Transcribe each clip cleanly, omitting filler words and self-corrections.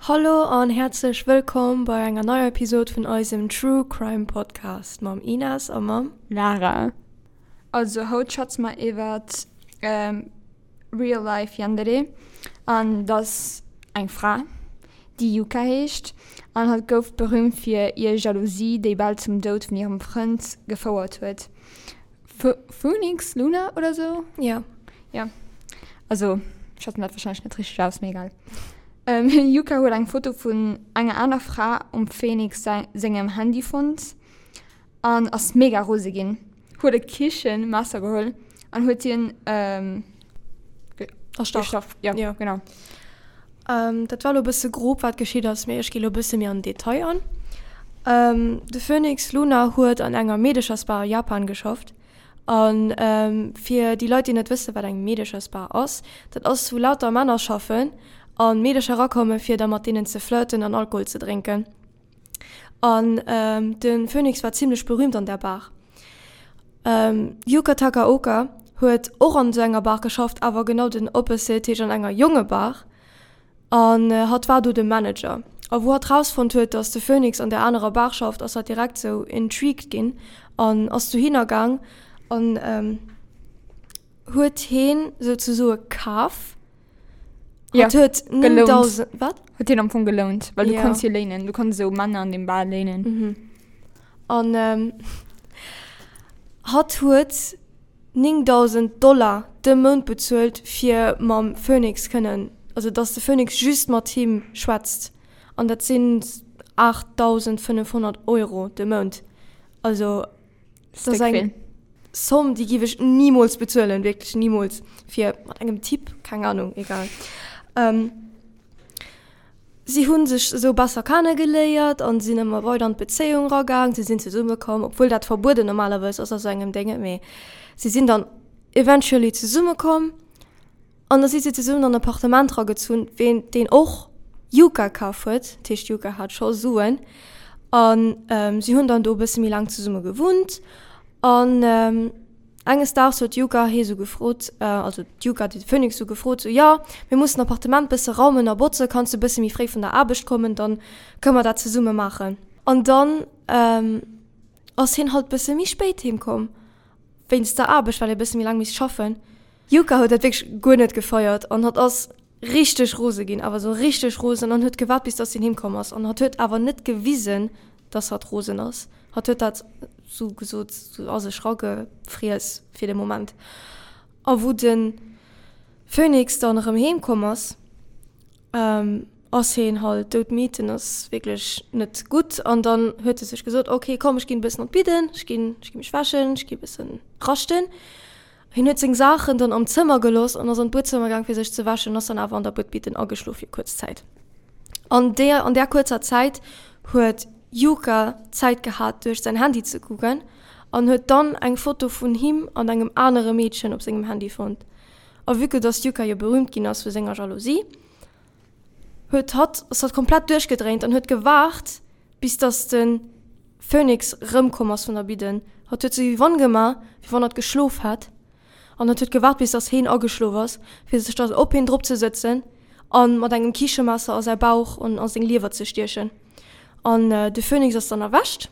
Hallo an häerzlech wëllkomm bei enger neier Episode vun eisem True Crime Podcast mam Ines a mam. Lara. Also haut schwätze mer iwwert Real Life Yandere an dat ass eng Fra déi Yuka heescht an hatt gouf berühmt fir ihr Jalousie déi bal zum Doud vun hirem Frënd gefouert huet. Phoenix Luna oder sou? Ja. Ja. Also, ech schwätzen dat wahrscheinlech net richteg aus, mee egal. Ähm, Yuka huet eng Foto vun enger aner Fra um Phoenix sengem Handy fonnt an ass mega rose ginn. Huet e Kichenmesser geholl an huet hien ähm, Erstach. Erstach. Ja, Ja. genau. Ähm, dat war lo e bësse grob, wat geschitt ass, mee ech gi lo e bësse méi an den Detail an. Ähm, de Phoenix Luna huet an enger Meedechersbar a Japan geschafft. An ähm, fir déi Leit, déi net wësse wat eng Meedechersbar ass, dat ass wou lauter Männer schaffen an Meedecher erakomme fir da mat deenen ze flirten an Alkohol ze drénken. An ähm, de Phoenix war zimmlech berühmt an där Bar. Ähm, Yuka Takaoka huet och an esou enger Bar geschafft, awer genau den Opposite, heescht an enger Jongebar. An hatt war do de Manager. A wou hatt rausfonnt huet, dass de Phoenix an där anerer Bar schafft, ass hatt direkt sou intrigued ginn an ass dohinner gaang an ähm, huet heen souzesoe kaf. Ja, Hatt huet gelount. 9000, wat? Huet hien am Fong gelount, well du Ja. konns hie léinen. Du konns esou Männer an deem Bar léinen. Mhm. An ähm, hatt huet 9.000 Dollar de Mount bezuelt, fir mam Phoenix kënnen, also dass de Phoenix just mat him schwätzt. An dat sinn 8.500 Euro de Mount. Also dat ass eng Somm, déi giff ech nimools bezuelen, wierklech nimools, fir mat engem Typ, keng Ahnung, egal. Ähm. Si hu sech esou besser kennegeléiert an sinn ëmmer weider an d'Bezéiung eragaang. Si sinn zesummekomm, obwuel dat verbueden normalerweis ass a sou engem Dénge, mee si sinn dann eventually zesummekomm an da si si zesummen an en Appartement eragezunn, ween deen och Yuka kaf huet. Dat heescht, Yuka hat scho Suen an si hunn dann do e bësse méi laang zesumme gewunnt an. Enges Daags huet d'Yuka hie sou gefrot, also d'Yuka huet de Phoenix sou gefrot, sou, Jo, mir mussen d'Appartement bësse raumen a botze, kanns du bësse méi fréi vun der Aarbecht kommen, dann kënne mer dat zesumme maachen. An dann ass hien halt bësse méi spéit heem komm, wéinst der Aarbecht, well hie bësse méi laang misst schaffen. D'Yuka huet dat wierklech guer net gefeiert an hatt ass richteg rose ginn, awer sou richteg rosen, an huet gewaart, bis dass hien heem komm ass. An hatt huet awer net gewisen, dass hatt rosen ass. Hatt huet dat sou gesot, sou a sech ragefriess fir de Moment. A wou de Phoenix dann erëm heem komm ass, ass hien halt doudmidd, en ass wierklech net gutt. An dann huet e sech gesot, ok komm ech ginn e bëssen an d'Bidden, ech ginn, ech gi mech wäschen, ech gi e bëssen raschten. Hien huet seng Saachen dann am Zëmmer geloss an ass an d'Buedzëmmer gaang fir sech ze wäschen, ass dann awer an der Buedbidden ageschlof fir kuerz Zäit. An där an där kuerzer Zäit huet Yuka Zäit gehat duerch säin Handy ze kucken an huet dann eng Foto vun him an engem anere Meedchen op sengem Handy fonnt. A vue que dass d'Yuka jo berühmt ginn ass vu senger Jalousie, huet hatt ass hatt komplett duerchgedréint an huet gewaart bis dass de Phoenix rëmkomm ass vun der Bidden. Hatt huet sou wéi wann gemaach, wéi wann hatt geschlof hätt an hatt huet gewaart bis dass heen ageschlof ass, fir sech dann op heen drop ze sëtzen an mat engem Kichemesser a säi Bauch an a seng Liewer ze stiechen. An de Phoenix ass dann erwächt,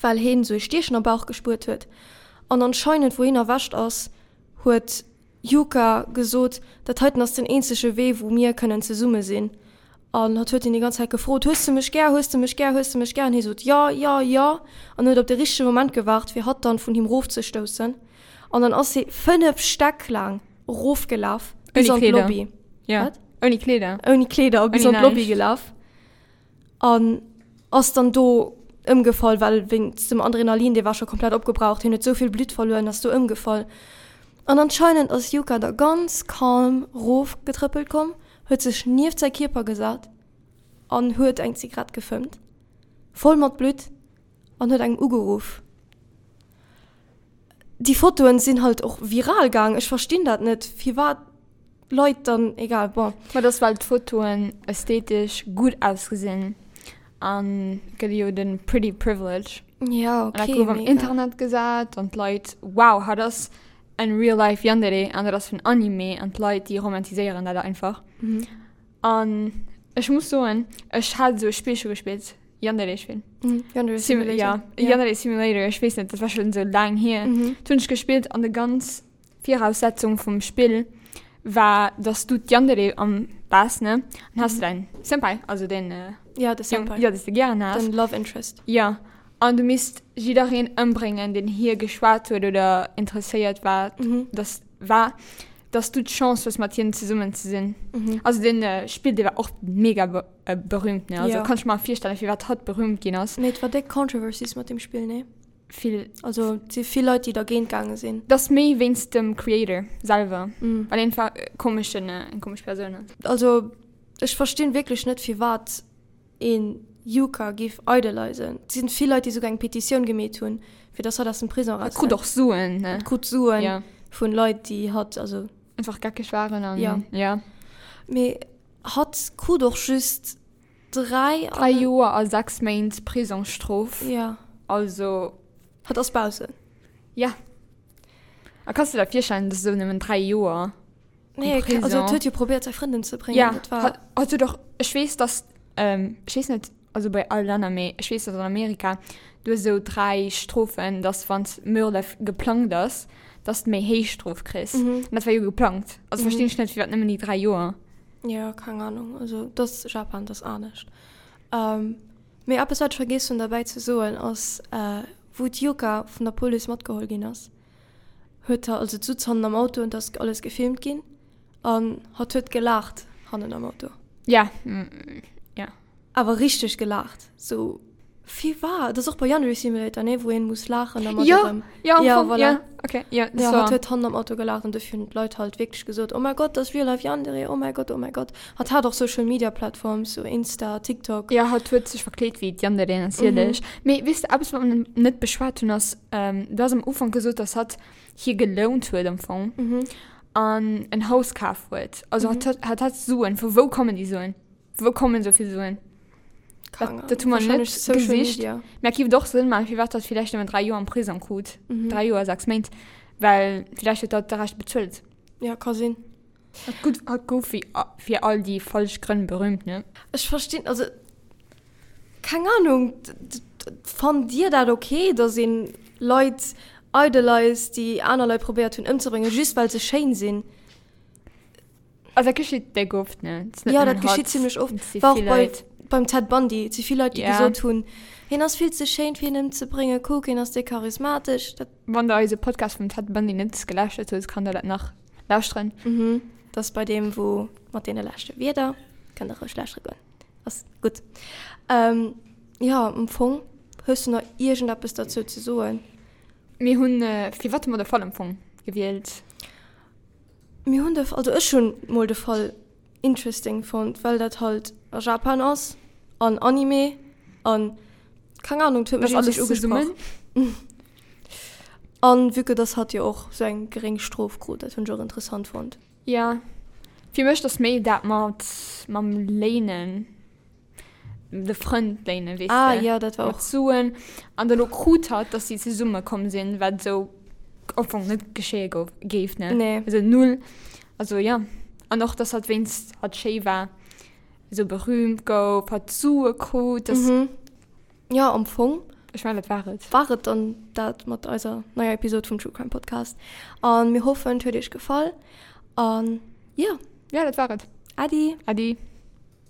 well heen sou e Stiechen am Bauch gespuert huet an anscheinend wou heen erwächt ass, huet Yuka gesot, dat heiten ass den eenzege Wee wou mir kënnen zesumme sinn. An hatt huet hien déi ganz Zäit gefrot, Hues de mech gär, hues de mech gär, hues de mech gär? An hie sot, Jo, jo, jo. An huet op de richtege Moment gewaart, fir hatt dann vun him rofzestoussen. An dann ass hie 5 Stäck laang erofgelaf bis Ouni an Kleeder. d'Lobby. Ja. Wat? Ouni Kleeder. Ouni Kleeder bis Ouni an d'Lobby näischt. gelaf. An ass dann do ëmgefall, well wéinst dem Adrenalin, dee war scho komplett opgebraucht, hien huet esou vill Blutt verluer an ass do ëmgefall. An anscheinend ass Yuka da ganz calm rofgetrëppelt komm, huet sech nieft säi Kierper gesat an huet eng Zigarett gefëmmt, voll mat Blutt, an huet engem ugeruff. Déi Fotoen sinn halt och viral gaang, ech verstinn dat net, firwat Leit dann, egal, bon. Ma dat ass well d'Fotoen ästhetesch gutt ausgesinn an gëtt jo den pretty privilege. Ja, An dat okay, gouf am mega. Internet gesat an d'Leit, wow, hatt ass en real life Yandere an dat ass vun Anime an d'Leit déi romantiséieren dat einfach. Mhm. An. Ech muss soen, ech hat esou e Spill scho gespillt, Yandere-Spill. Mhm, Yandere Sim Simulator. ja, Ja. Yandere Simulator, ech weess net, dat war schonn esou laang hier. Mhm. Dat hunn ech gespillt an de ganz Viraussetzung vum Spill war, dass du d'Yandere am waars, ne? An has du däin Senpai, also deen Ja, de Jong, Senpai. ja, dee s de gären has. Den Love Interest. Ja, an du misst jiddereen ëmbréngen, deen hir geschwat huet oder interesséiert war, Mhm. dass war, dass du d'Chance hues mat him zesummen ze sinn. Mhm. Also den äh, Spill, dee war och mega be äh, berühmt, ne? Also Ja. kann ich mer virstellen, firwat hatt berühmt ginn ass. Mee et war déck Controversies mat dem Spill, nee? Vill. Also et si vill Leit, déi dergéint gaange sinn. Dat ass méi wéinst dem Creator selwer, Mhm. well en war e komeschen, äh, eng komesch Persoun ass. Also ech verstinn wierklech net firwat een Yuka giff idolizen. Et sinn vill Leit déi souguer eng Petitioun gemeet hunn fir dass hatt aus dem Prison Hatt krut erauskënnt. och Suen, ne? Hatt krut Suen Ja. vun Leit déi hatt, also. Einfach geckeg waren an. Ja. Ja. Mee hatt krut och just 3 an. 3 Joer a 6 Méint Prisongsstrof. Ja. Also. Hatt ass baussen. Ja. A kanns de der virstellen, dass esou nëmmen 3 Joer. Nee, Prison. also et huet jo probéiert säi Frëndin ze bréngen. Ja, dat war hat, hat huet och, ech weess, dass, ähm, ech weess net, also bei alle Länner, mee ech weess, dass an Amerika du hues esou 3 Strofen, dass wann Mörder geplangt ass, dass de méi héich Strof kriss. Mhm. An dat war jo geplangt. Also Mhm. verstinn ech net, firwat nëmmen déi 3 Joer. Ja, keng Ahnung. Also dat ass Japan, dat ass anescht. Ähm, mee eppes wat ech vergiess hunn derbäi ze soen ass, äh, wou d'Yuka vun der Police matgeholl ginn ass. Huet ha, also sutz hannen am Auto und ass alles gefilmt ginn an hatt huet gelaacht hannen am Auto. Ja, ja. Awer richteg gelaacht, sou firwat? Dat ass och bei Yandere Simulator, nee, wou een muss laachen a mat Ja, erëm. ja, am Ja, Fong, voilà. ja, okay, ja, das Ja, war. hatt huet hannen am Auto gelaacht an dofir hunn d'Leit halt wierklech gesot, oh mäi Gott, dat ass real life Yandere, oh mäi Gott, oh mäi Gott. Hatt hat och Social Media Platforms, sou Insta, TikTok. Ja, hatt huet sech verkleet wéi d'Yandere natierlech. Mee weess de, eppes wat mer net beschwat hunn ass, du has am Ufank gesot, dass hatt hie gelount huet am Fong an en Haus kaf huet. Also hatt hat, hatt hat Suen. Vu wou kommen déi Suen? Vu wou kommen esou vill Suen? Keng Dat, dat hu mer net Wahrscheinlech Social gesicht. Media. Mä et géif et och Sënn maachen, firwat hatt villäicht nëmmen 3 Joer am Prisong krut. 3 Joer, 6 Méint. Well villäicht huet hatt de Rescht bezuelt. Ja, ka sinn. Hatt gutt, hatt gouf wéi fir all déi falsch Grënn berühmt, ne? Ech verstinn, also keng Ahnung, fannt dir dat ok, dass een Leit idolized, déi aner Leit probéiert hunn ëmzebréngen, just well se schéin sinn? Also dat geschitt déck oft, ne? Et ass net Ja, nëmmen dat geschitt hatt, zimlech oft. et si War och vill bei, Leit. beim Ted Bundy, et si vill Leit, déi Ja. gesot hunn, hien ass vill ze schéin fir hien ëmzebréngen, kuck, hien ass déi charismatesch. Dat, Wann der eise Podcast vum Ted Bundy net gelauschtert hutt, kann der dat nach lauschteren. Mhm, dat ass bei deem wou mat deene leschte Wierder, kënnt der roueg lauschtere goen, ass gutt. Ähm, jo, am Fong, hues du nach iergendeppes derzou ze soen? Mir hunn, firwat hu mer de Fall am Fong gewielt? Mir hunn de, also ech hunn mol de Fall interesting fonnt, well dat halt a Japan ass an Anime an keng Ahnung, et huet mech Das alles iergendwéi ugesprach. zesummen. An vue que dass hatt jo och sou eng geréng Strof krut, dat hunn ech och interessant fonnt. Ja, fir mech ass méi dat mat mam Léinen, de Frënd léinen, weess Ah de, jo, dat war mat och. Suen. An dann och krut hatt, dass si zesumme komm sinn, wat esou am Fong net geschéie gouf, géif, ne? Nee. Also null. Also ja. An och, dass hatt wéinst hatt schéi war, esou berühmt gouf, hatt Sue krut, dass. Mhm. Jo, am Fong. Ech mengen, dat war et. War et dann dat mat eiser neier Episode vum True Crime Podcast. An mir hoffen, et huet iech gefall. An jo. Jo, dat war et. Adi. Adi.